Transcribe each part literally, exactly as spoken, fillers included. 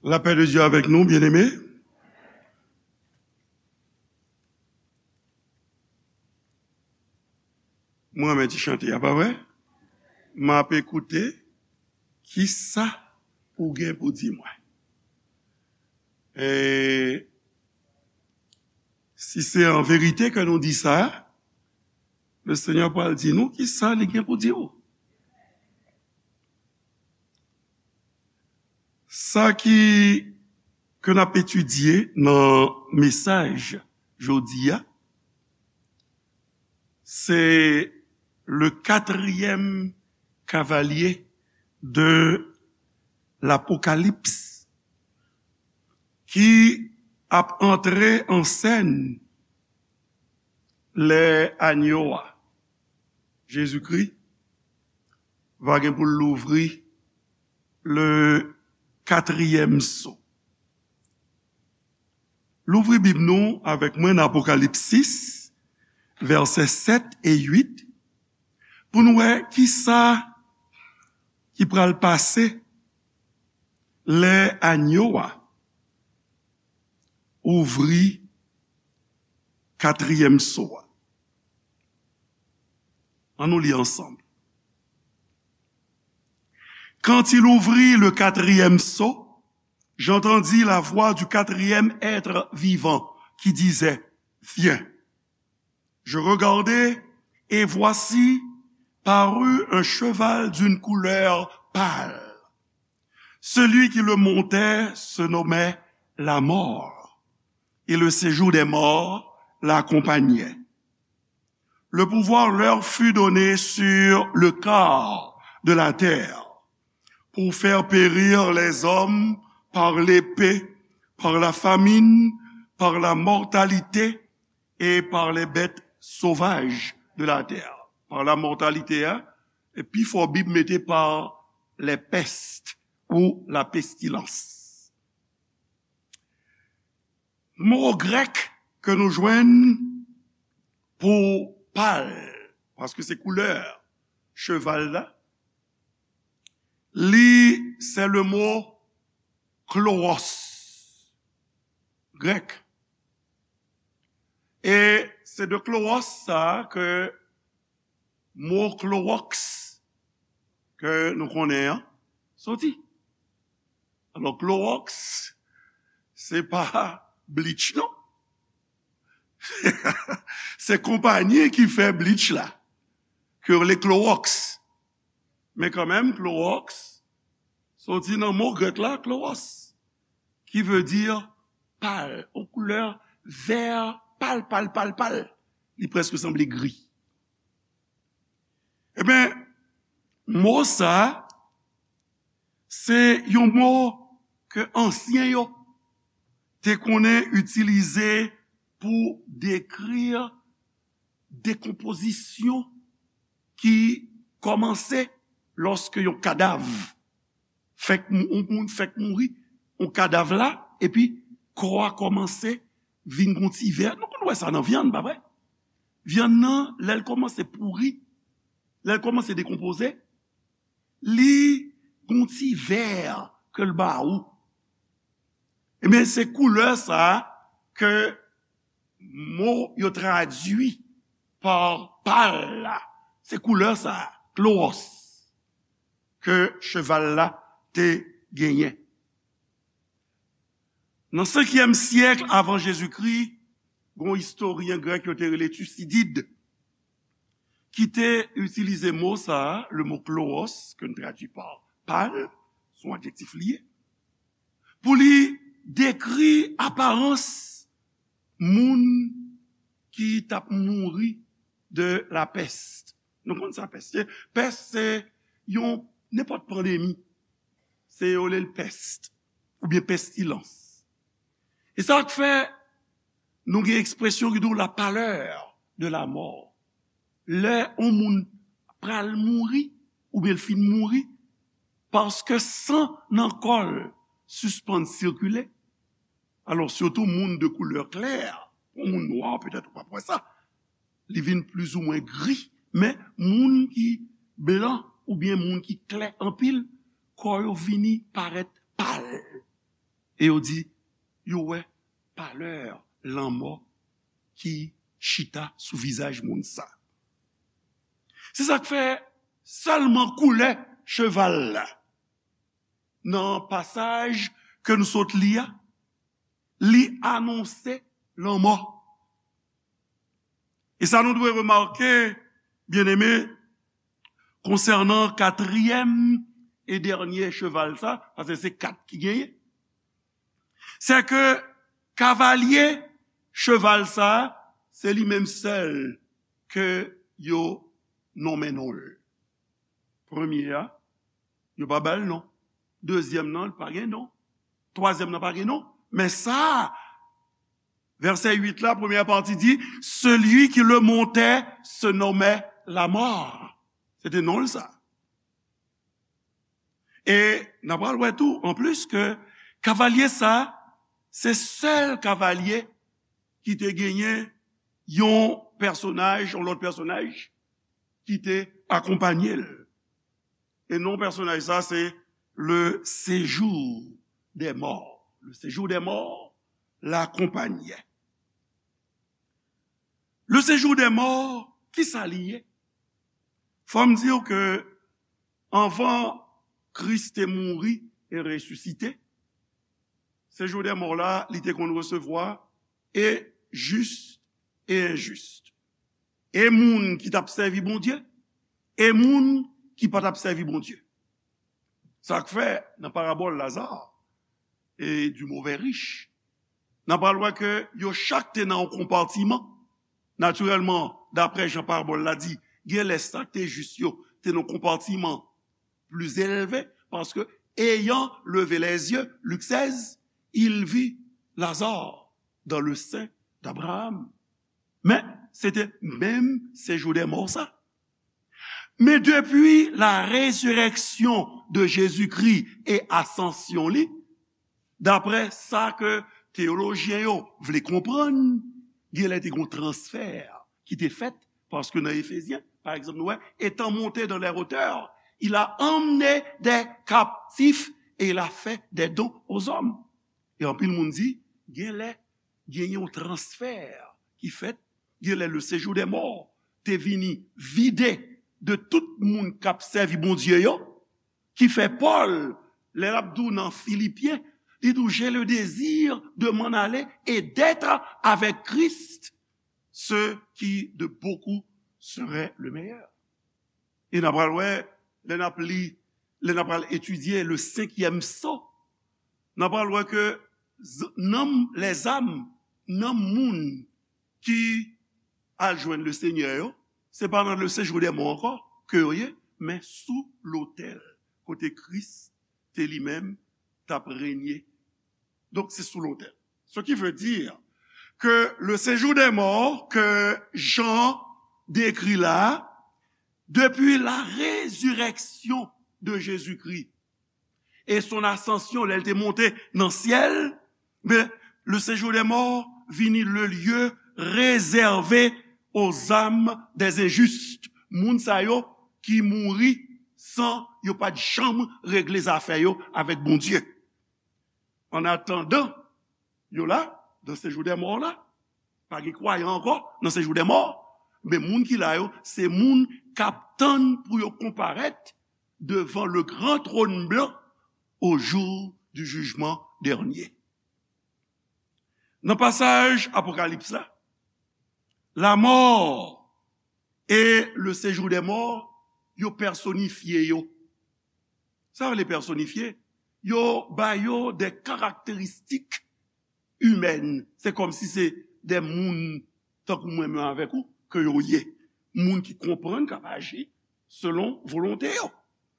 La paix de Dieu avec nous, bien-aimés. Mwen renmen ti chante a, pa vre? M ap ekoute kisa ou gen pou di mwen. E si se an verite ke nou di sa, le Senyè pral di nou kisa li gen pou di ou. Sa ki, ke n ap etidye nan mesaj jodi a, se le quatrième cavalier de l'Apocalypse ki ap antre an sèn lè anyo a, Jezikri, va gen pou l louvri le quatrième sceau. Louvri Bib nou avèk mwen nan Apokalips sis, vèsè sèt e uit, pou nou wè kisa ki pral pase lè anyo a ouvri katriyèm so a. Ann nou li ansanm. Quand il ouvrit le quatrième sceau, j'entendis la voix du quatrième être vivant qui disait, Viens. Je regardai, et voici, parut un cheval d'une couleur pâle. Celui qui le montait se nommait la mort, et le séjour des morts l'accompagnait. Le pouvoir leur fut donné sur le quart de la terre, pour faire périr les hommes par l'épée, par la famine, par la mortalité et par les bêtes sauvages de la terre. Par la mortalité, hein, e pi fò Bib mete par les pestes ou la pestilence. Mo grèk ke nou jwenn pou pal, paske se koulè cheval la, li, se le mo kloros, grèk. E se de kloros sa ke mo klowòks ke nou konnen an soti. Alò, klowòks, se pa bleach, non. Se konpayi ki fè bleach la, ke yo rele klowòks. Men kanmenm, klowòks soti nan mo grèk la, klowòs, ki vle di pal, yon koulè vè pal, pal, pal, pal. Li prèske sanble gri. Ebyen, mo sa, se yon mo ke ansyen yo te konnen itilize pou dekri dekonpozisyon ki kòmanse lòske yon kadav fèk mou-, yon moun fèk mouri, yon kadav la, epi kò a kòmanse vin gon ti vè. Nou konn wè sa nan vyann, pa vre? Vyann nan, lè l kòmanse pouri, lè l kòmanse dekonpoze, li gon ti vè ke l ba ou. Ebyen, se koulè sa a ke mo yo tradui pa pal la. Se koulè sa a, klowòs, ke cheval la te genyen. Nan senkyèm syèk avan Jezikri, gon istoryen grèk yo te rele Tisidid, ki te itilize mo sa a, le mo klowòs, ke n tradui pa pal, se yon adjektif li ye, pou li dekri aparans moun ki t ap mouri de la pès. Nou konn sa pès ye? Pès se yon, nenpòt pandemi. Se yo rele l pès oubyen pestilans. E sa k fè nou gen ekspresyon ki di w la pâleur de la mort. Lè yon moun pral mouri, oubyen l fin mouri, paske san nan kò l sispann sikile. Alò, sitou moun de koulè klè, yon moun nwa, petèt ou p ap wè sa, li vin plizoumwen gri, men moun ki blan oubyen moun ki klè anpil, kò yo vini parèt pal. E yo di, yo wè palè lanmò ki chita sou vizaj moun sa. Se sa k fè sèlman koulè cheval la, nan pasaj ke nou sot li a, li anonse lanmò. E sa nou dwe remake, byeneme, konsènan katriyèm e dènye cheval sa, paske se kat ki genyen, se ke kavalye cheval sa, se li menm sèl ke yo nonmen non l. Premye a, yo pa ba l non. Dezyèm nan, li pa gen non. Twazyèm nan pa gen non. Men sa, vèsè uit la, premyè pati di, celui qui le montait se nommait la mort. Se te non l sa. E n ap pral wè tou, anplis, ke kavalye sa, se sèl kavalye ki te genyen yon pèsonaj, yon lòt pèsonaj ki te akonpanye l. E non pèsonaj sa, se le séjour des morts. Le séjour des morts l'akompanyè. Le séjour des morts, ki sa li ye? Fò m di w ke anvan Kris te mouri e resisite, séjour des morts la, li te konn resevwa e jis e enjis. E moun ki t ap sèvi Bondye, e moun ki pa t ap sèvi Bondye. Sa k fè, nan parabòl Laza e du mauvais riche, n ap pral wè ke yo chak te nan yon konpatiman. Natirèlman, daprè jan parabòl la di, gen lè sa k te jis yo te nan yon konpatiman pli elve, paske, ayant levé les yeux, Lik sèz, il vit Lazare dans le sein d'Abraham. Men, se te menm séjour des morts sa. Men depi la résurrection de Jésus-Christ e asansyon li, daprè sa ke teyolojyen yo vle konprann, gen lè te gen yon transfè ki te fèt, paske nan Efezyen, pa egzanp, nou wè, étant monté dans les hauteurs, il a emmené des captifs et il a fait des dons aux hommes. E anpil moun di, gen lè, gen yon transfè ki fèt, gen lè le séjour des morts te vini vide de tout moun k ap sèvi Bondye yo, ki fè Pòl, lè l ap di w nan Filipyen, li di w, j'ai le désir de m'en aller et d'être avec Christ, ce qui de beaucoup serait le meilleur. E n ap pral wè, lè n ap li, lè n ap pral etidye le cinquième sceau, n ap pral wè ke z-, nanm, lèzam, nanm moun ki al jwenn le Senyè yo, se pa nan le séjour des morts ankò ke yo ye, men sou lotèl, kote Kris te li menm t ap renye. Donk, se sou lotèl. Ce qui veut dire que le séjour des morts que Jean décrit là, depuis la résurrection de Jésus-Christ et son ascension, lè l te monte nan syèl, men le séjour des morts vini le lieu réservé aux âmes des injustes. Moun sa yo ki mouri san yo pa t janm regle zafè yo avèk Bondye. An atandan, yo la, nan séjour des morts la, pa gen kwayan ankò nan séjour des morts, men moun ki la yo, se moun k ap tann pou yo konparèt devan le grand trône blanc au jour du jugement dernier. Nan pasaj Apokalips la, la mort et le séjour des morts, yo pèsonifye yo. Sa vle pèsonifye? Yo ba yo de karakteristik imèn. Se kòmsi se de moun tankou mwen menm avèk ou ke yo ye. Moun ki konprann, k ap aji selon volonte yo.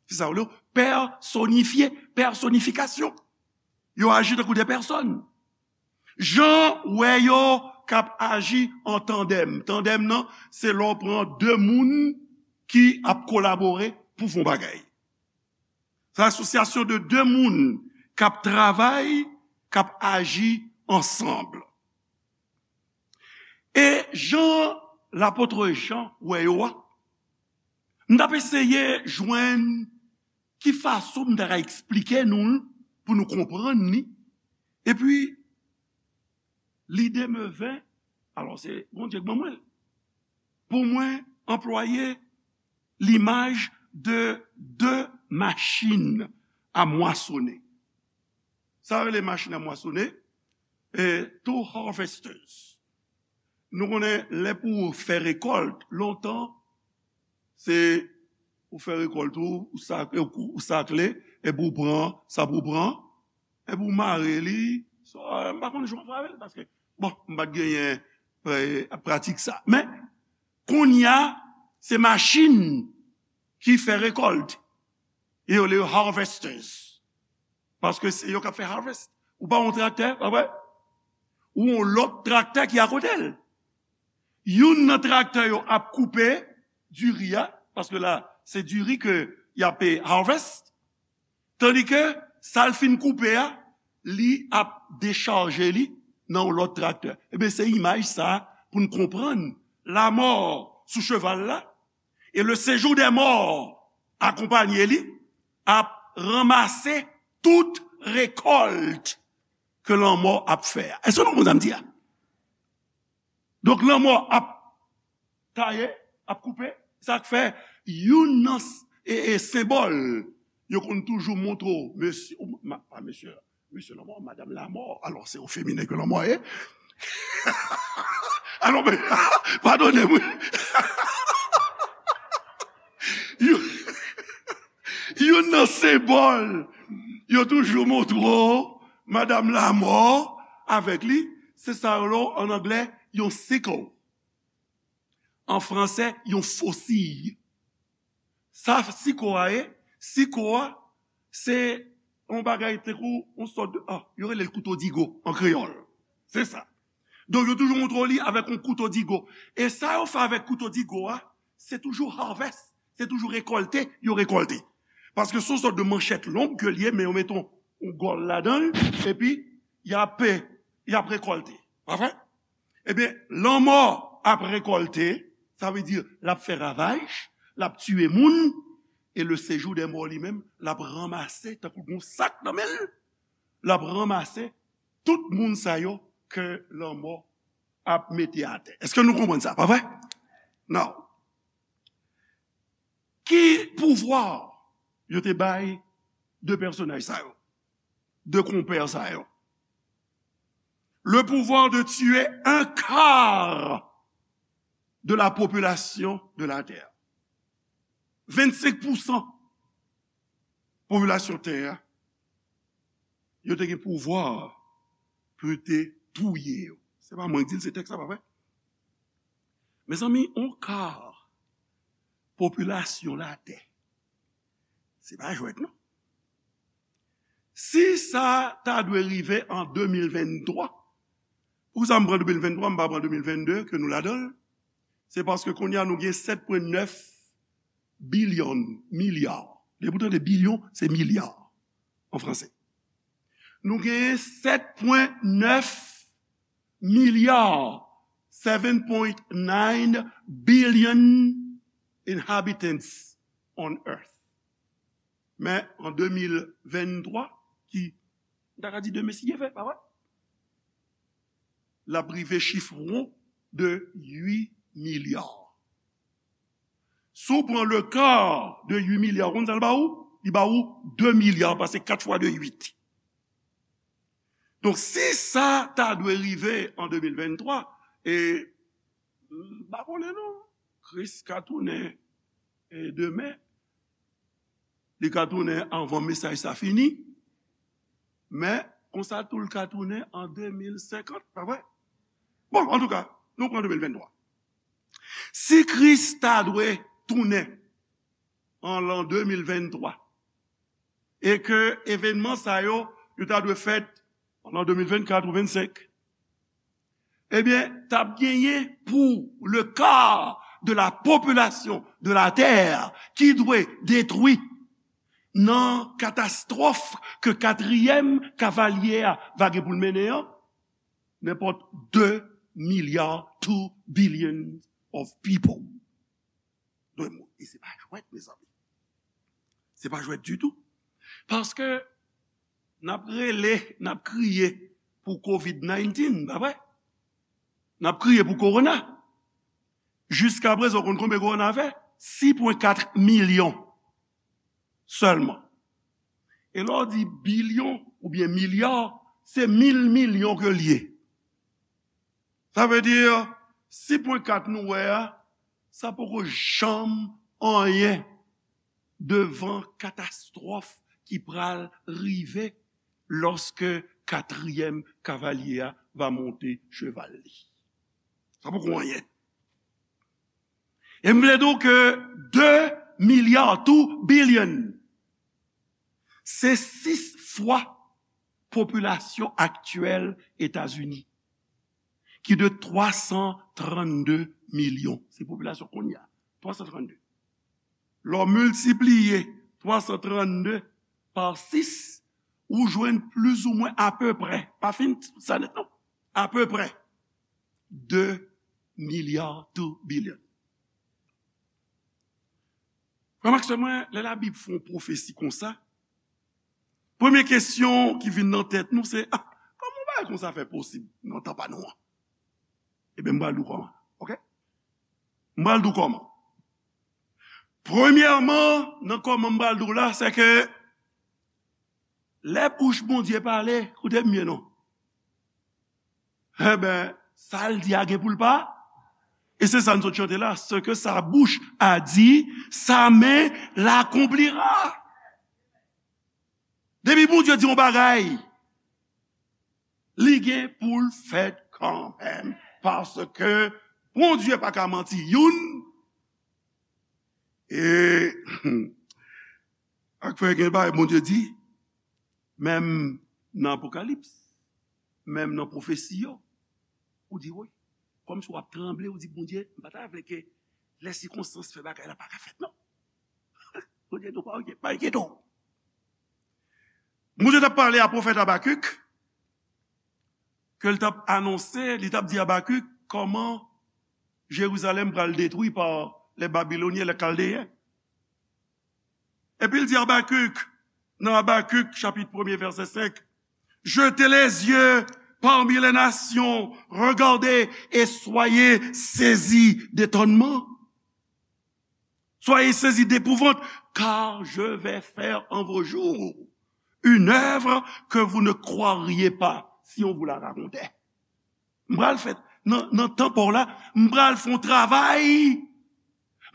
Se sa yo rele pèsonifye, pèsonifikasyon. Yo aji tankou de pèsòn. Jan w wè yo k ap aji an tandèm. Tandèm nan, se lè w pran de moun ki ap kolabore pou fè yon bagay. Se asosyasyon de de moun k ap travay, k ap aji ansanm. E jan lapot Jan wè yo a, m t ap eseye jwenn ki fason m ta ka eksplike nou l pou nou konprann li, Epi, lide me ven, alò se Bondye k ban mwen l, pou mwen anplwaye limaj de de machin a mwasonnen. Sa rele machin a mwasonnen, e, two harvesters. Nou konnen lè pou fè rekòlt, lontan, se ou fè rekòlt ou, ou sak-, ou sakle, epi ou pran sa pou pran, epi ou mare li. So, m pa konn jan w fè avè l, paske, bon, m pa t genyen, e, pratik sa. Men, kounye a, se machin ki fè rekòlt. E yo rele yo harvesters. Paske se yo k ap fè harvest. Ou pa yon traktè, pa vre? Ou yon lòt traktè ki akote l. Youn nan traktè yo ap koupe diri a, paske la, se diri ke y ap, e, harvest. Tandike sa l fin koupe a, li ap dechaje li nan yon lòt traktè. Ebyen, se imaj sa pou n konprann lanmò sou cheval la, e le séjour des morts akonpanye li, ap ranmase tout rekòlt ke lanmò ap fè a. Èske nou konprann sa m di a? Donk, lanmò ap taye, ap koupe. Sa k fè youn nan s-, e, e, senbòl yo konn toujou montre w, mesye, ou, ma-, pa mesye, mesye lanmò, madanm lanmò. Alò, se o feminen ke lanmò ye. Alò, men, padone m, wi. Yo, youn nan senbòl yo toujou montre w, madanm lanmò avèk li, se sa yo rele, an anglè, yon sickle. An fransè, yon fosiy. Sa siko a ye? Siko a, se yon bagay tankou yon sòt de, ah, yo rele l kouto digo an kreyòl. Se sa. Donk, yo toujou montre w li avèk yon kouto digo. E sa yo fè avèk kouto digo a, se toujou harvest, se toujou rekòlte, yo rekòlte. Paske se yon sòt de manchèt long ke l ye, men yo mete yon, yon gòl ladan l, epi y ap, y ap rekòlte. Pa vre? Ebyen, lanmò ap rekòlte, sa vle di l ap fè ravaj, l ap tiye moun, e le séjour des morts li menm, l ap ranmase, tankou gon sak nan men l, l ap ranmase tout moun sa yo ke lanmò ap mete atè. Èske nou konprann sa, pa vre? Now, ki pouvwa yo te bay de pèsonaj sa yo, de konpè sa yo? Le pouvoir de tuer un quart de la population de la terre. Vennsenk pousan popilasyon tè a, yo te gen pouvwa pou yo te touye yo. Se pa mwen ki di l, se tèks la, pa vre? Mezanmi, yon ka popilasyon latè, se pa jwèt, non. Si sa ta dwe rive an de mil venntwa, poukisa m pran de mil venntwa, m pa pran de mil vennde, ke nou ladan l? Se paske kounye a nou gen sèt pwen nèf bilyon, milya. Depi w tande bilyon, se milya an fransè. Nou genyen sèt pwen nèf milya, seven point nine billion inhabitants on earth. Men an de mil venntwa, ki, m ta ka di demen si Dye vle, pa vre? L ap rive chif won de uit milya. Si w pran le ka de uit milya, ou konn sa l ba ou? Li ba ou de milya, paske kat fwa de uit. Donk, si sa ta dwe rive an de mil venntwa, e, m pa konnen non, Kris ka tounen, e, demen, li ka tounen anvan mesaj sa fini, men konsa tou l ka tounen an de mil senkant, pa vre? Bon, antouka, nou pran de mil venntwa. Si Kris ta dwe tounen an lan de mil venntwa, e ke evènman sa yo, yo ta dwe fèt an lan de mil vennkat ou vennsenk, ebyen, t ap genyen pou le quart de la population de la terre ki dwe detwi nan katastwòf ke katriyèm kavalye a va gen pou l mennen an, nenpòt de milya, two billion of people. Dwe mouri. E se pa jwèt, mezanmi. Se pa jwèt ditou. Paske n ap rele, n ap kriye, pou kovid diznèf, pa vre? N ap kriye pou kowona. Jiskaprezan, w konn konbyen kowona fè? Sis pwen kat milyon sèlman. E lè w di bilyon oubyen milya, se mil milyon ke l ye. Sa vle di, sis pwen kat nou wè a, sa poko janm anyen devan katastwòf ki pral rive lòske katriyèm kavalye a va monte cheval li. Sa poko anyen. E m vle di w ke de milya, two billion, se sis fwa popilasyon aktyèl Etazini, ki de twa san trannde milyon. Se popilasyon kounye a, twa san trannde. Lè w miltipliye twa san trannde pa sis, ou jwenn plizoumwen apeprè, pa fin sa nèt non, apeprè de milya, two billion. Frè m ak sè mwen, lè Labib fè yon pwofesi konsa, premye kesyon ki vin nan tèt nou se, ah, kòman yon bagay konsa fè posib nan tan pa nou an? Ebyen, m pral di w kòman, oke? M pral di w kòman. Premyèman, nan kòman m pral di w la, se ke lè bouch Bondye pale, koute m byen non. Enben, sa l di a gen pou l pa. E se sa n sot chante la, ce que sa bouche a dit, sa main l'accomplira. Depi Bondye di yon bagay, li gen pou l fèt kanmenm, paske Bondye pa ka manti youn. E ak fè gen bagay Bondye di, menm nan Apokalips, menm nan pwofesi yo, ou di, wi, kòmsi w ap tranble, ou di, Bondye, m pa ta vle ke lè sikonstans fè bagay la pa ka fèt non. Bondye di w, pa enkyete w. Bondye t ap pale a pwofèt Abakik, ke l t ap anonse, li t ap di Abakik kòman Jerizalèm pral detwi pa les Babyloniens, les Chaldéens. Epi l di Abakik, nan Abakik, chapit premye, vèsè senk, jetez les yeux parmi les nations, regardez et soyez saisis d'étonnement. Soyez saisis d'épouvante, car je vais faire en vos jours une œuvre que vous ne croiriez pas si on vous la racontait. M pral fè, nan, nan tan pa w la, m pral fè yon travay,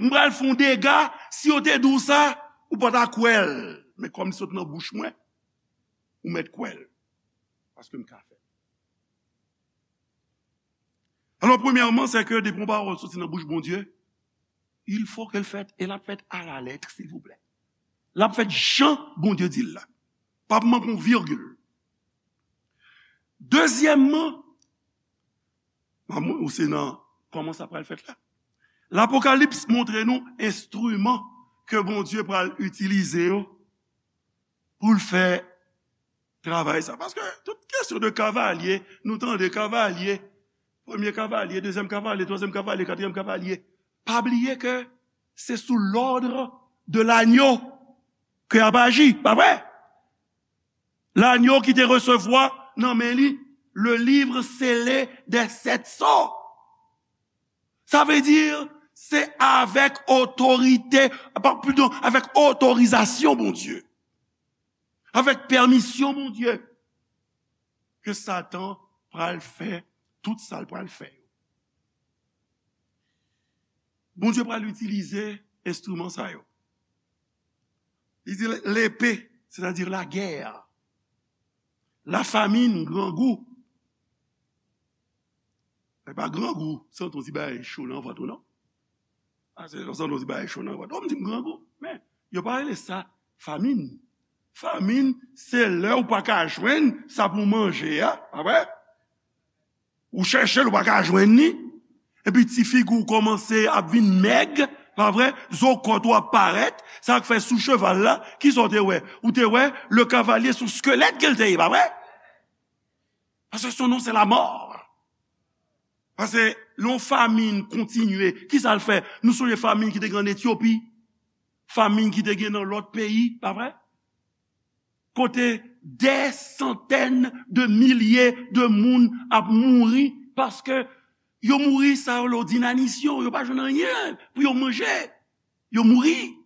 m pral fè yon dega, si yo te di w sa, ou pa ta kwè l. Men kòm li sot nan bouch mwen, ou mèt kwè l. Paske m ka fè l. Alò, premyèman, se ke depi yon pawòl soti nan bouch Bondye, il faut que l fèt, e l ap fèt à la lettre, silvouplè. L ap fèt jan Bondye di l la. Pa p manke yon virgil. Dezyèmman, ou se nan kòman sa pral fèt la. Lapokalips montre nou enstriman ke Bondye pral itilize yo pou l fè travay sa. Paske tout kesyon de kavalye, nou tande kavalye, premye kavalye, dezyèm kavalye, twazyèm kavalye, katriyèm kavalye. Pa bliye ke se sou lòd de lanyo ke y ap aji, pa vre? Lanyo ki te resevwa nan men li le livre scellé des sept sceaux. Sa vle di, se avèk otorite, pa, pardon, avèk otorizasyon Bondye, avèk pèmisyon Bondye, ke Satan pral fè tout sa l pral fè yo. Bondye pral itilize enstriman sa yo. Li di lepe, sètadi lagè, lafamin, grangou. E pa grangou, santi yon ti bagay cho nan vant ou non. A, se lè w santi yon ti bagay cho nan vant ou, m di m grangou. Men, yo pa rele sa famin. Famin, se lè ou pa ka jwenn sa pou w manje a, pa vre? Ou chèche l, ou pa ka jwenn li. Epi ti figi w kòmanse ap vin mèg, pa vre? Zo kòt ou ap parèt. Sa k fè sou cheval la, kisa w te wè? Ou te wè le cavalier sou skelèt ke l te ye, pa vre? Paske son non se lamò. Paske lè yon famin kontinye, kisa l fè? Nou sonje famin ki te gen ann Etyopi, famin ki te gen nan lòt peyi, pa vre? Kote Dè santèn de milye de moun ap mouri paske yo mouri, sa yo, lo dinanisyon, yo pa jwenn anyen pou yo manje. Yo mouri.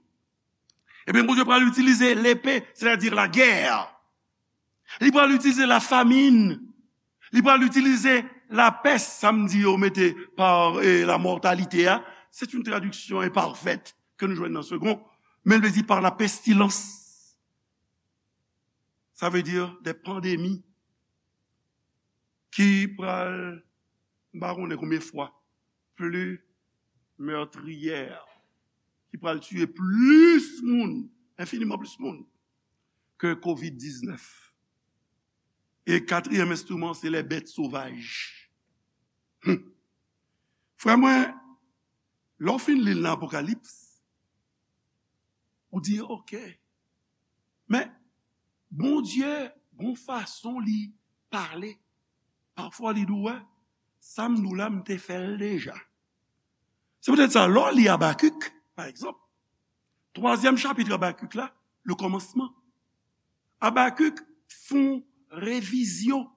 Ebyen, Bondye pral itilize lepe, sètadi lagè. Li pral itilize lafamin. Li pral itilize lapès, sa m di yo mete pa, eh, la mòtalite a. Se yon tradiksyon enpafèt ke nou jwenn nan Segond, men l vle di pa la pestilans. Sa vle di de pandemi ki pral, m pa konnen konbyen fwa, pli mètriyè, ki pral tiye plis moun, enfiniman plis moun, ke kovid diznèf. E katriyèm enstriman, se lè bèt sovaj. Hmm. Frè mwen, lè w fin li l nan Apokalips, ou di, "Ok." Men, Bondye, gon fason li pale. Pafwa, li di w, "Wè, sa m di w la, m te fè l deja." Se poutèt sa, lè w li Abakik, pa egzanp, twazyèm chapit Abakik la, le kòmansman, Abakik fè yon revizyon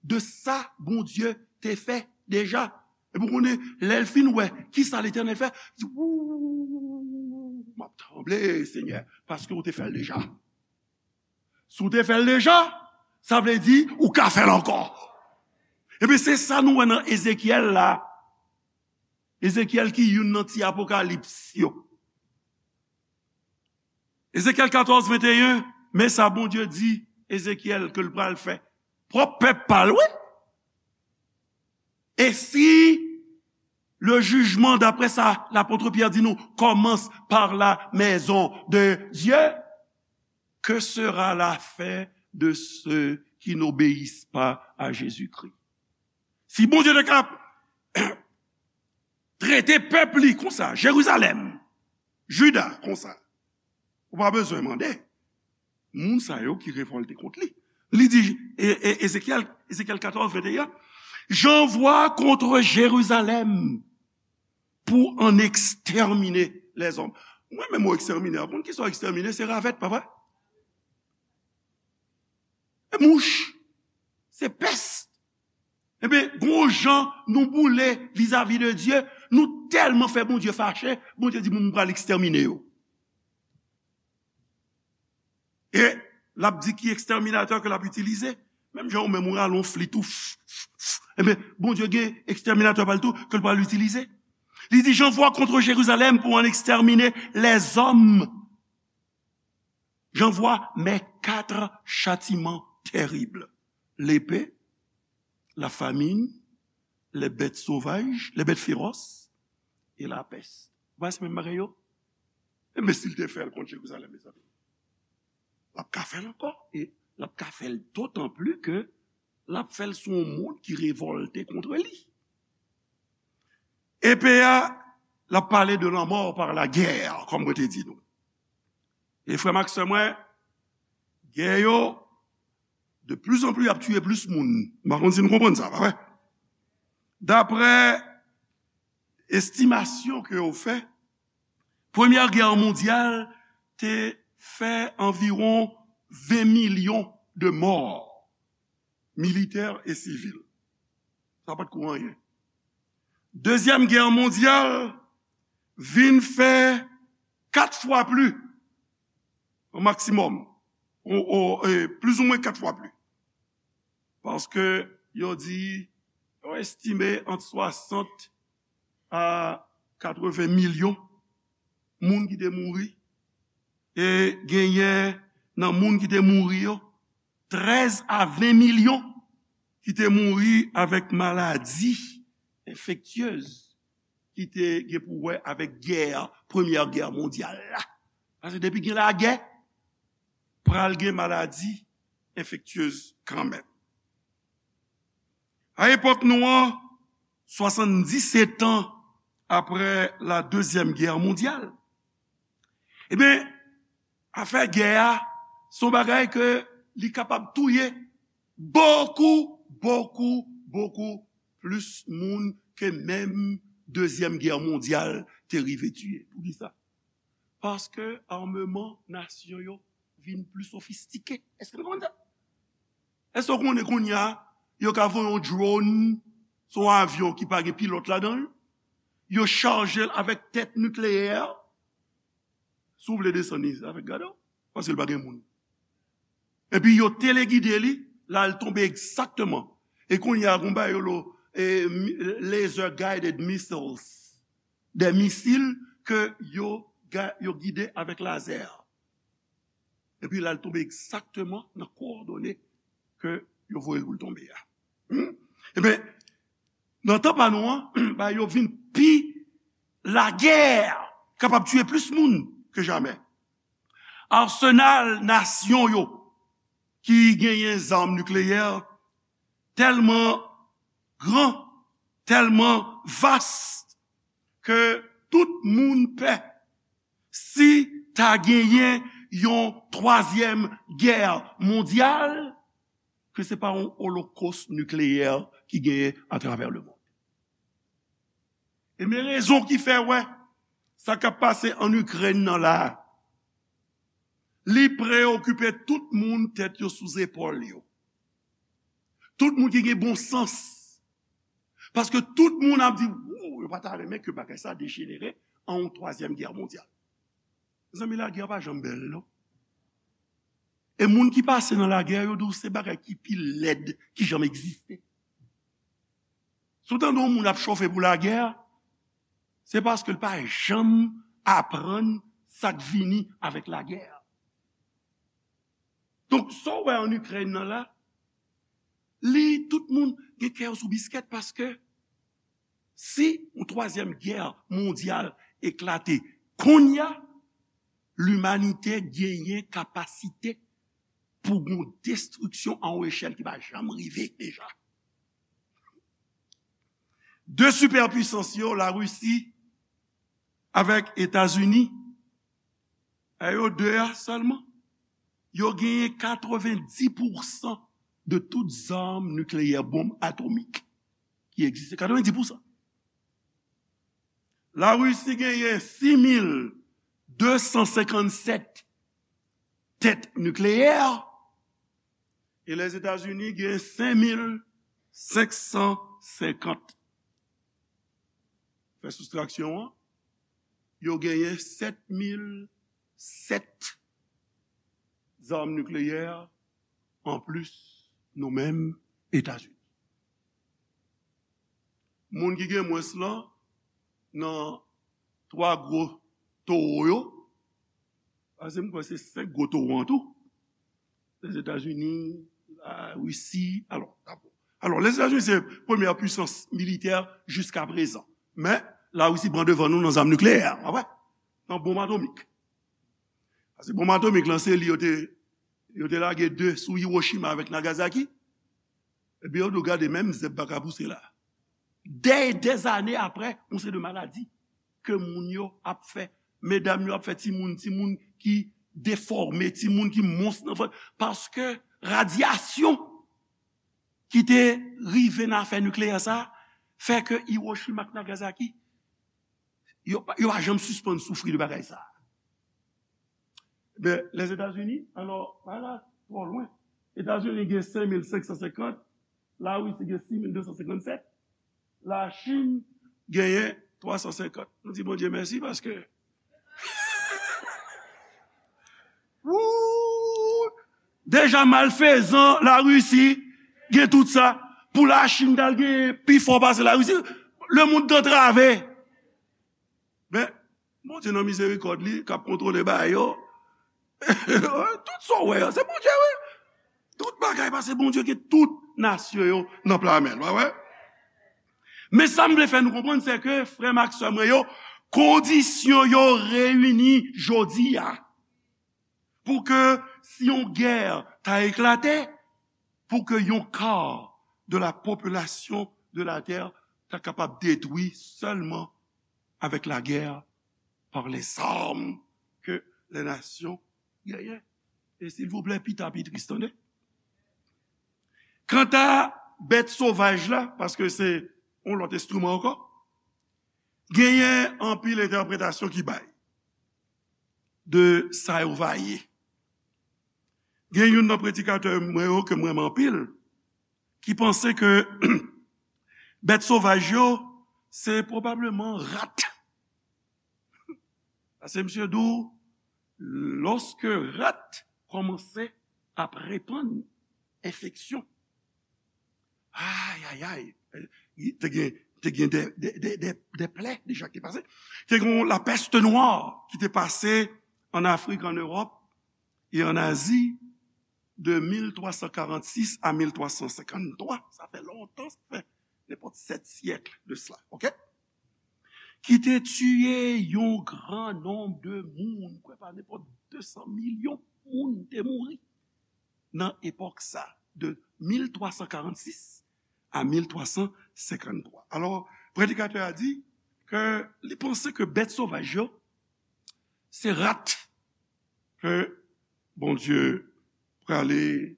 de sa Bondye te fè deja. Epi w konnen, lè l fin wè ki sa Letènèl fè, li di, "Wou, m ap tranble, Senyè, paske w te fè l deja." Si w te fè l deja, sa vle di ou ka fè l ankò. Epi se sa nou wè nan Ezekyèl la. Ezekyèl ki youn nan ti apokalips yo. Ezekyèl katòz venteyen, men sa Bondye di Ezekyèl ke l pral fè. Pwòp pèp pa l, wi. Et si le jugement, d'après ça, l'apôtre Pierre dit nous, commence par la maison de Dieu, que sera la fin de ceux qui n'obéissent pas à Jésus-Christ? Si Bondye te ka trete pèp li konsa, Jerizalèm, Jida konsa, ou pa bezwen mande. Moun sa yo ki revòlte kont li. Li di, e, e, Ezekyèl, Ezekyèl katòz venteyen, "J'envoie contre Jérusalem pour en exterminer les hommes." Mwen menm, mo ekstèmine a, konn ki sa ekstèmine? Se ravèt, pa vre? E mouch. Se pès. Ebyen, gon jan nou boule vizavi de Dye, nou tèlman fè Bondye fache, Bondye di, "Mwen, mwen pral ekstèmine yo." E l ap di ki ekstèminatè ke l ap itilize. Menm jan ou menm ou rale yon flit ou, f, f, f. Ebyen, Bondye gen ekstèminatè pa l tou ke l pral itilize. Li di, "J'envoie contre Jérusalem pour en exterminer les hommes. J'envoie mes quatre châtiments terribles. L'épée, la famine, les bêtes sauvages, les bêtes féroces et la peste." Ou pa wè se menm bagay yo? Ebyen, si l te fè l kont Jerizalèm, mezanmi, l ap ka fè l ankò. E l ap ka fè l dotan pli ke l ap fè l sou yon moun ki revòlte kont li. Epe a, l ap pale de lanmò pa lagè, kòm mwen te di nou. E frè m ak sè mwen, gè yo, de plus en plus, y ap tiye plis moun. M pa konn si nou konprann sa, pa vre? Daprè estimasyon ke yo fè, Premyè Gè Mondyal te fè anviwon ven milyon de mò, militè e sivil. Sa pa t ko anyen. Dezyèm Gè Mondyal vin fè kat fwa pli, o maksimòm, o, o, e, plizoumwen kat fwa pli. Paske yo di, yo estime ant swasant a katreven milyon moun ki te mouri. E genyen nan moun ki te mouri yo, trèz a ven milyon ki te mouri avèk maladi enfektyez ki te gen pou wè avèk gè, Premyè Gè Mondyal la. Paske depi gen lagè, pral gen maladi enfektyez kanmenm. A epòk nou an, swasanndisèt an apre la Dezyèm Gè Mondyal, ebyen, afè gè a, se yon bagay ke li kapab touye bokou, bokou, bokou plis moun ke menm Dezyèm Gè Mondyal te rive tiye. Poukisa? Paske ameman nasyon yo vin pli sofistike. Èske nou konprann sa? Èske w konnen kounye a, yo ka voye yon drone, se yon avyon ki pa gen pilòt ladan l, yo chaje l avèk tèt nikleyè, si w vle desann li avèk gade w, paske l pa gen moun. Epi yo telegide li, l al tonbe egzakteman. E kounye a, gon bagay yo lo, e, mi- laser guided missiles, de misil ke yo, ga- yo gide avèk lazè. Epi l al tonbe egzakteman nan kowòdone ke yo voye l pou l tonbe a. Hmm? Ebyen, nan tan pa nou an, ba yo vin pi lagè, kapab tiye plis moun ke jamè. Asenal nasyon yo ki genyen zam nikleyè tèlman gran, tèlman vas, ke tout moun pè si ta genyen yon twazyèm gè mondyal, ke se pa yon olokos nikleyè ki genyen atravè lemonn. E men rezon ki fè, wè, sa k ap pase ann Ikrèn nan la a, li preyokipe tout moun tèt yo sou zepòl yo. Tout moun ki gen bon sans. Paske tout moun ap di, "Wou, yo pa ta renmen ke bagay sa dejenere an yon twazyèm gè mondyal." Mezanmi, lagè pa janm bèl, non. E moun ki pase nan lagè, yo di w se bagay ki pi lèd ki janm egziste. Si w tande yon moun ap chofe pou lagè, se paske l pa janm aprann sa k vini avèk lagè. Donk, sa w wè ann Ikrèn nan la, li, tout moun gen kè yo sou biskèt paske si yon twazyèm gè mondyal eklate kounye a, limanite genyen kapasite pou gon destriksyon a yon echèl ki pa janm rive deja. De sipèpwisans yo, Larisi avèk Etazini, e yo de a sèlman, yo genyen katrevenndis pousan de tout zam nikleyè, bonm atomik ki egziste. Katrevenndis pousan. Larisi genyen sis mil de san senkannsèt tèt nikleyè, e Lèzetazini genyen senk mil senk san senkant. Fè soustraksyon an, yo genyen sèt mil sèt zam nikleyè anplis nou menm Etazini. Moun ki gen mwens lan nan twa gwo towo yo, paske m kwè se senk gwo towo an tou, Lèzetazini, Larisi, alò, dabò. Alò, Lèzetazini se premyè pwisans militè jiska prezan. Men, Larisi pran devan nou nan zam nikleyè, w wè? Nan bonm atomik. Paske bonm atomik lan, se li yo te, yo te lage de sou Hiroshima avèk Nagasaki. Epi yo di w gade, menm zèb pa ka pouse la. Dè, dèzane apre, yon seri de maladi ke moun yo ap fè, medam yo ap fè timoun, timoun ki defòme, timoun ki mons nan vant, paske radyasyon ki te rive nan afè nikleyè sa a fè ke Hiroshima ak Nagasaki, yo, pa- yo pa janm sispann soufri de bagay sa a. Men, Lèzetazini, alò, pa la twò lwen. Etazini gen senk mil senk san senkant, Larisi gen sis mil de san senkannsèt, Lachin genyen twa san senkant. Nou di Bondye mèsi paske Woo! Deja malfezan Larisi gen tout sa. Pou Lachin t al gen pi fò pase Larisi, lemonn t antrave. Men, Bondye nan mizerikòd li, k ap kontwole bagay yo. Tout sa w wè an, se Bondye, wi. Tout bagay pase Bondye, ke tout nasyon yo nan pla men l, w wè? Men sa m vle fè nou konprann, se ke, frè m ak sè mwen yo, kondisyon yo reyini jodi a pou ke si yon gè ta eklate, pou ke yon ka de la popilasyon de la tè ta kapab detwi sèlman avec la guerre par les armes que les nations gagnent. E silvouplè, pita pi tris, tande. Kanta bèt sovaj la, paske se yon lòt enstriman ankò, genyen anpil entèpretasyon ki bay de sa yo va ye. Gen youn nan predikatè mwen yo ke m renmen anpil, ki panse ke bèt sovaj yo, se pwobableman rat. Paske misye di w, lòske rat kòmanse ap repann enfeksyon, ay, ay, ay, te gen, te gen de, de, de, de, de plè deja ki te pase. Te gen lapès nwè ki te pase an Afrik, an Ewòp e an Azi de mil twa san karannsis a mil twa san senkanntwa. Sa fè lontan, sa fè nenpòt sèt syèk de sela, oke? Ki te tiye yon gran nonb de moun, kwè pa nenpòt de san milyon moun te mouri nan epòk sa, de mil twa san karannsis a mil twa san senkanntwa. Alò, predikatè a di ke li panse ke bèt sovaj yo, se rat ke Bondye prale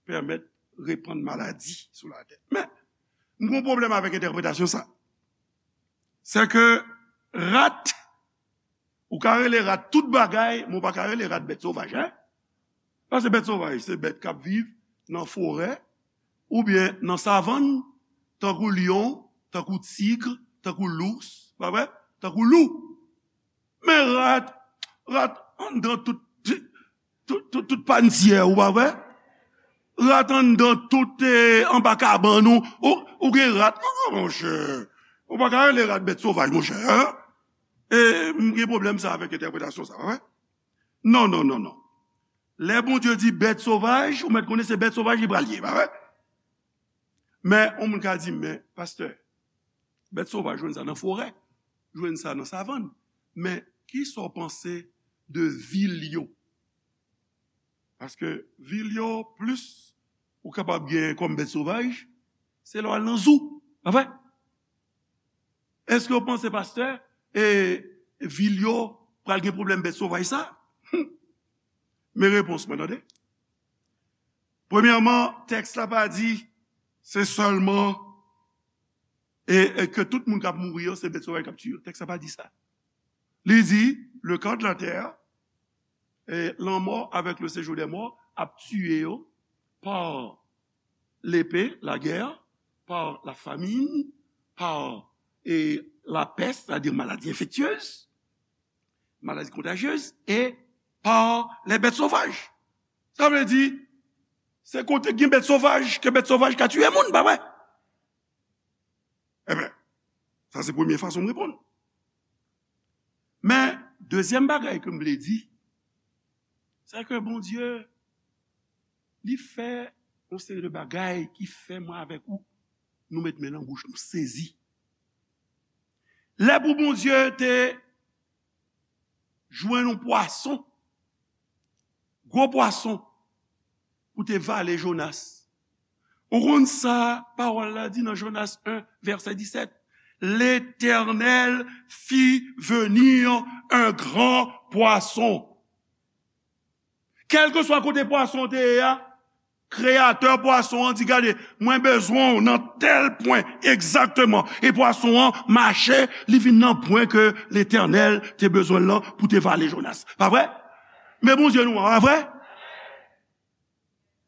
pèmèt repann maladi sou latè. Men, m gen yon pwoblèm avèk entèpretasyon sa. Se ke rat, ou ka rele rat tout bagay, men ou pa ka rele rat bèt sovaj, en? Paske bèt sovaj, se bèt k ap viv nan forè, oubyen nan savann, tankou lyon, tankou tig, tankou lous, pa vre? Tankou lou. Men rat, rat anndan tout, tout, tout, tout panntyè, ou pa vre? Rat anndan tout, eh, anba kabann ou, ou, ou gen rat. Non, monchè. Ou pa ka rele rat bèt sovaj, monchè, en? E, m gen pwoblèm sa avèk entèpretasyon sa, pa vre? Non, non, non, non. Lè Bondye di bèt sovaj, ou mèt konnen se bèt sovaj li pral ye, pa vre? Men, yon moun ka di, men, pastè, bèt sovaj jwenn sa nan forè, jwenn sa nan savann. Men, kisa w panse de vil yo? Paske vil yo, plis ou kapab gen kòm bèt sovaj, se lè w al nan zoo, pa vre? Èske w panse, pastè, e vil yo pral gen pwoblèm bèt sovaj sa? Men repons mwen, tande. Premyèman, tèks la pa di se sèlman e, e ke tout moun k ap mouri yo, se bèt sovaj k ap tiye yo. Tèks la pa di sa. Li di, le quart de la terre, e lanmò avec le séjour des morts ap tiye yo pa lepe, lagè, pa la famin, pa, e, lapès, sètadi maladi enfektyez, maladi kontajyez, e pa lè bèt sovaj. Sa vle di, se kote gen bèt sovaj, ke bèt sovaj ka tiye moun, pa vre? Ebyen, sa se premye fason m reponn. Men, dezyèm bagay ke m vle di, se ke Bondye, li fè yon seri de bagay ki fè mwen avèk ou, nou met men nan bouch, nou sezi. Lè pou Bondye te jwenn yon pwason, gwo pwason, pou te vale Jonas. Ou konn sa pawòl la di nan Jonas en, vèsè disèt? L'Éternel fit venir un grand poisson. Kèlkeswa kote pwason te ye a, kreyatè pwason an di, gade, mwen bezwen w nan tèl pwen egzakteman. E pwason an mache, li vin nan pwen ke Letènèl te bezwen l lan pou te vale Jonas. Pa vre? Men Bondye nou an, pa vre?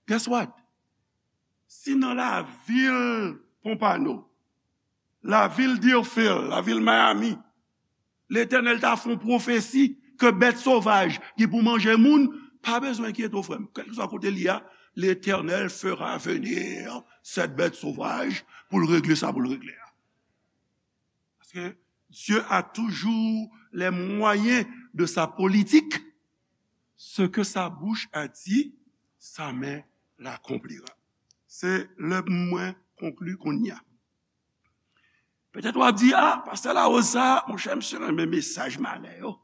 Guess what? Si nan lavil Pompano, lavil Deerfield, lavil Miami, Letènèl ta fè yon pwofesi ke bèt sovaj gen pou manje moun, pa bezwen enkyete w, frè m. Kèlkeswa kote l ye a, Letènèl fera venir cette bête sauvage pou l regle sa pou l regle a. Parce que Dieu a toujours les moyens de sa politique. Ce que sa bouche a dit, sa main l'accomplira. Se lè mwen konkli kounye a. Petèt w ap di, a, pastè Larose sa, monchè, misye renmen mesaj malè yo.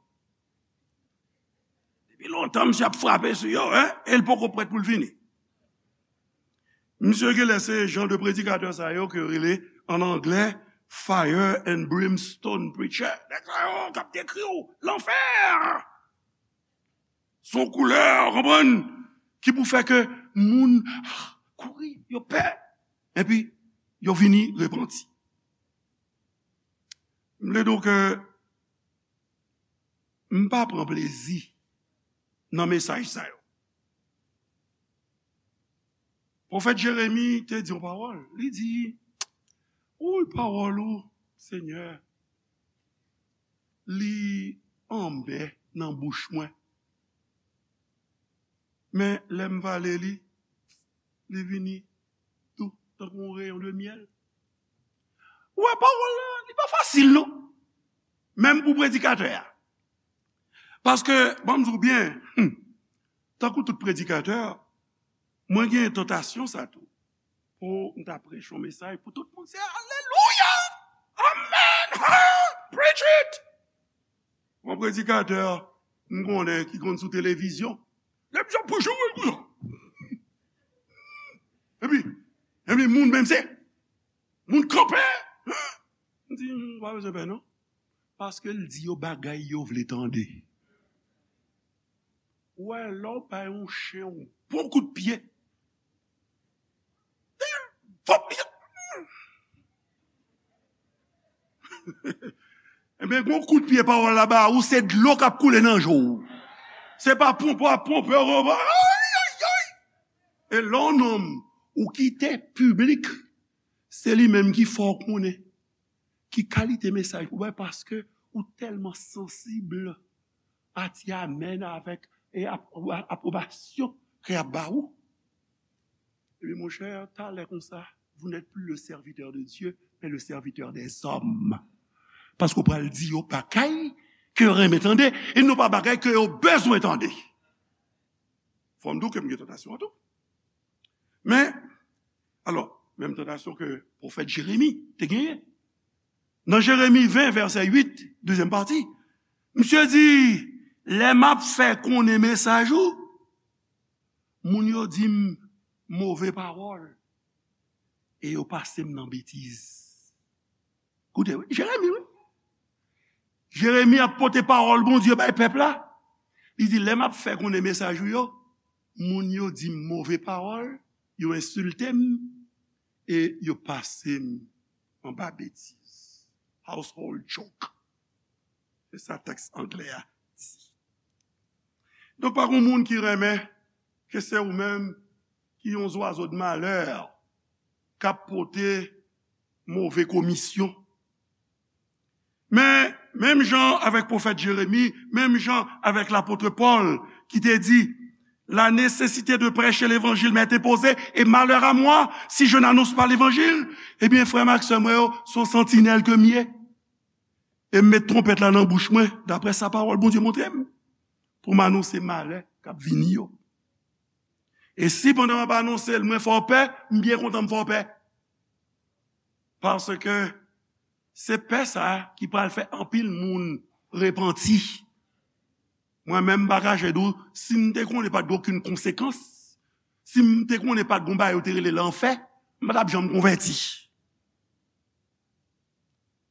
Depi lontan, misye ap frape sou yo, en, e l poko prèt pou l vini. Misye genlè se jan de predikatè sa yo ke yo rele, an anglè, fire and brimstone preacher. Nèg sa yo k ap dekri w lanfè. Se yon koulè, w konprann, ki pou fè ke moun kouri, yo pè, epi yo vini repanti. M vle di w ke m pa pran plezi nan mesaj sa yo. Pwofèt Jeremi te di yon pawòl. Li di, "Woy, pawòl ou, Senyè, li anmè nan bouch mwen. Men lè m vale li, li vini dou tankou yon reyon de myèl." Ou wè, pawòl la, li pa fasil, non. Menm pou predikatè a. Paske, ban m di w byen, hmm, tankou tout predikatè, mwen gen tantasyon sa tou. Pou m ta preche yon mesaj pou tout moun, se alelouya! Amèn! Ha! Preach it! Yon predikatè, m konnen ki konn sou televizyon. Televizyon pou joure, pou joure. Epi, epi moun menm se, moun kanpe. M di, "M pa bezwen pè, non." Paske l di yo bagay yo vle tande. Ou wè, lè w bay yon chen yon bon kout pye, vòp li. Ebyen, gon kout pye pawòl la ba ou, se dlo k ap koule nan je w. Se pa ponpe w ap ponpe w. Ay, ay, ay. E lè yon nonm ou kite piblik, se li menm ki fè w konnen ki kalite mesaj pou bay, paske ou tèlman sansib a ti amèn avèk e ap-, apwobasyon ke y ap ba ou. Ebyen, monchè, talè konsa, vous n'êtes plus le serviteur de Dieu, mais le serviteur des hommes. Paske w pral di yo bagay ke yo renmen tande, e non pa bagay ke yo bezwen tande. Fò m di w ke m gen tantasyon an tou. Men, alò, menm tantasyon ke pwofèt Jeremi te genyen. Nan Jeremi ven, vèsè uit, dezyèm pati, misye di, "Lè m ap fè konnen mesaj ou, moun yo di m move pawòl, e yo pase m nan betiz." Koute, wi, Jeremi, wi. Jeremi ap pote pawòl Bondye bay pèp la. Li di, "Lè m ap fè konnen mesaj ou yo, moun yo di m move pawòl, yo ensilte m, e yo pase m anba betiz." Household joke. Se sa tèks anglè a di. Donk, pa gen moun ki renmen ke se ou menm ki yon zwazo de malè k ap pote move komisyon. Men, menm jan avèk pwofèt Jeremi, menm jan avèk lapot Pòl ki te di, "La nécessité de prêcher l'évangile m'est imposée, et malheur à moi si je n'annonce pas l'évangile." Ebyen, frè m ak sè mwen yo, se yon santinèl ke m ye. E m met twonpèt la nan bouch mwen, daprè sa pawòl Bondye montre m, pou m anonse malè k ap vini yo. E si pandan m ap anonse l, mwen fè w pè, m byen kontan m fè w pè. Paske se pè sa a ki pral fè anpil moun repanti. Mwen menm, m pa kache di w, si m te konnen pa t gen okenn konsekans, si m te konnen pa t gen yon bagay yo te rele lanfè, m pa t ap janm konvèti.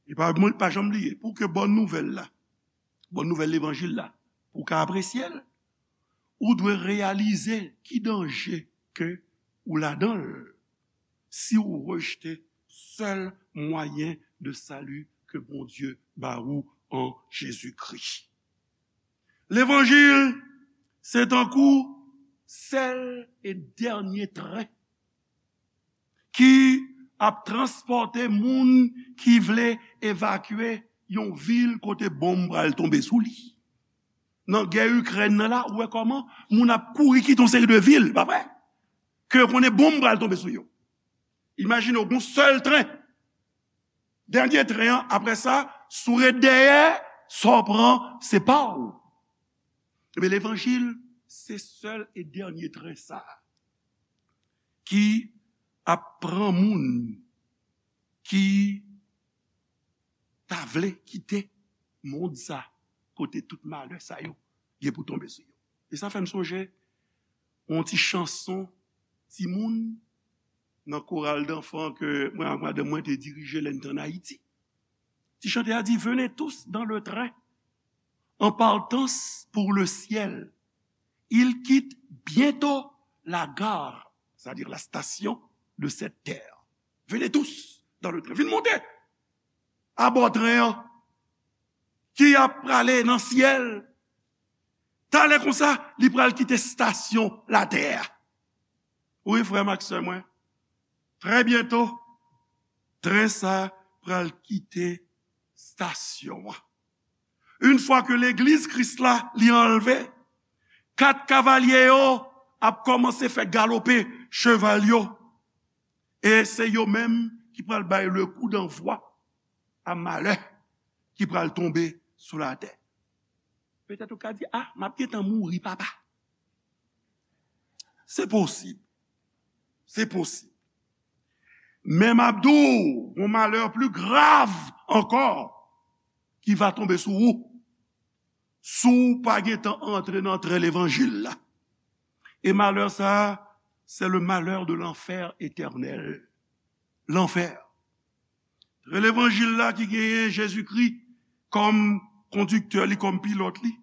E pa, pa janm bliye, pou ke bòn nouvèl la, bòn nouvèl levanjil la, pou w ka apresye l, ou dwe reyalize ki danje ke ou ladan l si w rejte sèl mwayen de sali ke Bondye ba ou an Jezikri. Levanjil, se tankou sèl e dènye tren ki ap transpòte moun ki vle evakye yon vil kote bonm pral tonbe sou li. Nan gè Ikrèn nan la, ou wè kòman moun ap kouri kite yon seri de vil, pa vre? Ke yo konnen bonm pral tonbe sou yo. Imajine w, gon sèl tren. Dènye tren an, apre sa, si w ret dèyè, sa w pran, se pa w. Ebyen, levanjil, se sèl e dènye tren sa a ki ap pran moun ki ta vle kite mond sa, kote tout malè sa yo gen pou tonbe sou yo. E sa fè m sonje yon ti chanson timoun nan koral danfan ke mwen ak madanm mwen te dirije lè n te ann Ayiti. Ti chantè a di, "Venez tous dans le train en partance pour le ciel. Il quitte bientôt la gare, c'est-à-dire la station de cette terre. Venez tous dans le train." Vin monte abò tren an ki ap prale nan syèl. Talè konsa, li pral kite stasyon latè a. Wi, frè m ak sè mwen, trè byento, tren sa pral kite stasyon an. Yon fwa ke legliz Kris la li anlve, kat kavalye yo ap kòmanse fè galope cheval yo. E se yo menm ki pral bay le kou danvwa a malè ki pral tonbe sou latè. Petèt ou ka di, "A, m ap gentan mouri, papa." Se posib. Se posib. Men m ap di w, yon malè pli grav ankò ki va tonbe sou ou si w pa gentan antre nan tren levanjil la. E malè sa a, c'est le malheur de l'enfer éternel. Lanfè. Tren levanjil la ki genyen Jezikri kòm kondiktè li, kòm pilòt li,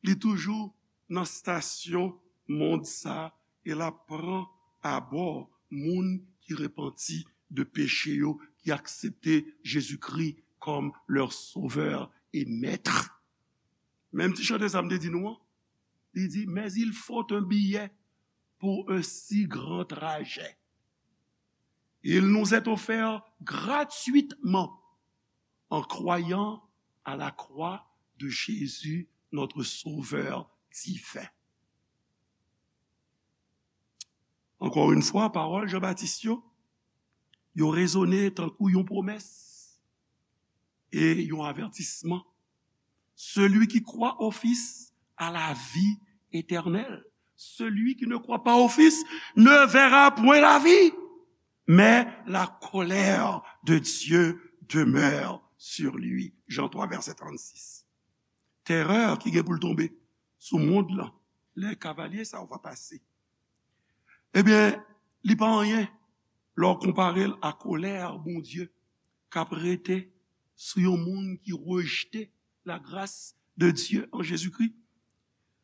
li toujou nan stasyon mond sa a e l ap pran abò moun ki repanti de peche yo, ki aksepte Jezikri kòm leur sauveur et maître. Menm ti chante sa m te di nou an, li di, "Mais il faut un billet pour un si grand trajet. Il nous est offert gratuitement en croyant à la croix de Jésus, notre Sauveur divin." Ankò yon fwa, pawòl Jan Batis yo, yo rezone tankou yon pwomès e yon avètisman. Celui qui croit au Fils a la vie éternelle. Celui qui ne croit pas au Fils ne verra point la vie, mais la colère de Dieu demeure sur lui. Jan twa, vèsè trannsis. Terè ki gen pou l tonbe sou mond lan, lè kavalye sa yo va pase. Ebyen, li pa anyen lè w konpare l a kolè Bondye k ap rete sou yon moun ki rejte la grâce de Dieu en Jésus-Christ.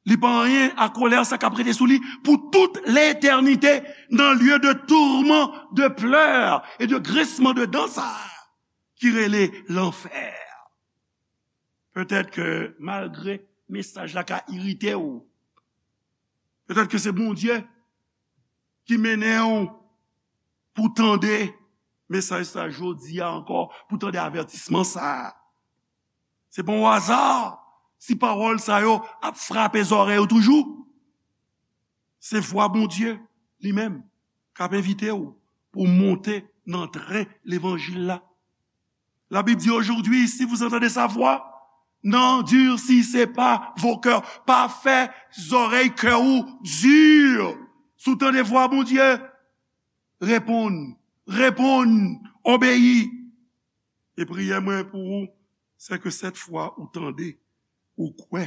Li pa anyen a kolè sa k ap rete sou li pou tout letènite nan lye de tourment, de pleurs et de grincement de dents sa a ki rele lanfè. Petèt ke malgre mesaj la ka irite w, petèt ke se Bondye ki mennen w pou tande mesaj sa jodi a ankò, pou tande avètisman sa a. Se pa yon aza si pawòl sa yo ap frape zòrèy ou toujou. Se vwa Bondye li menm k ap envite w pou w monte nan tren levanjil la. La Bible dit aujourd'hui, si vous entendez sa voix, n'endurcissez pas vos cœurs. Pa fè zòrèy kè ou di. Si w tande vwa Bondye, reponn, reponn, obeyi. E priyè mwen pou ou, se ke sèt fwa ou tande, ou kwè,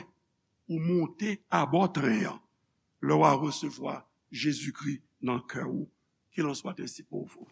ou monte abò tren an, lè w a resevwa Jezikri nan kè ou. Qu'il en soit ainsi pour vous.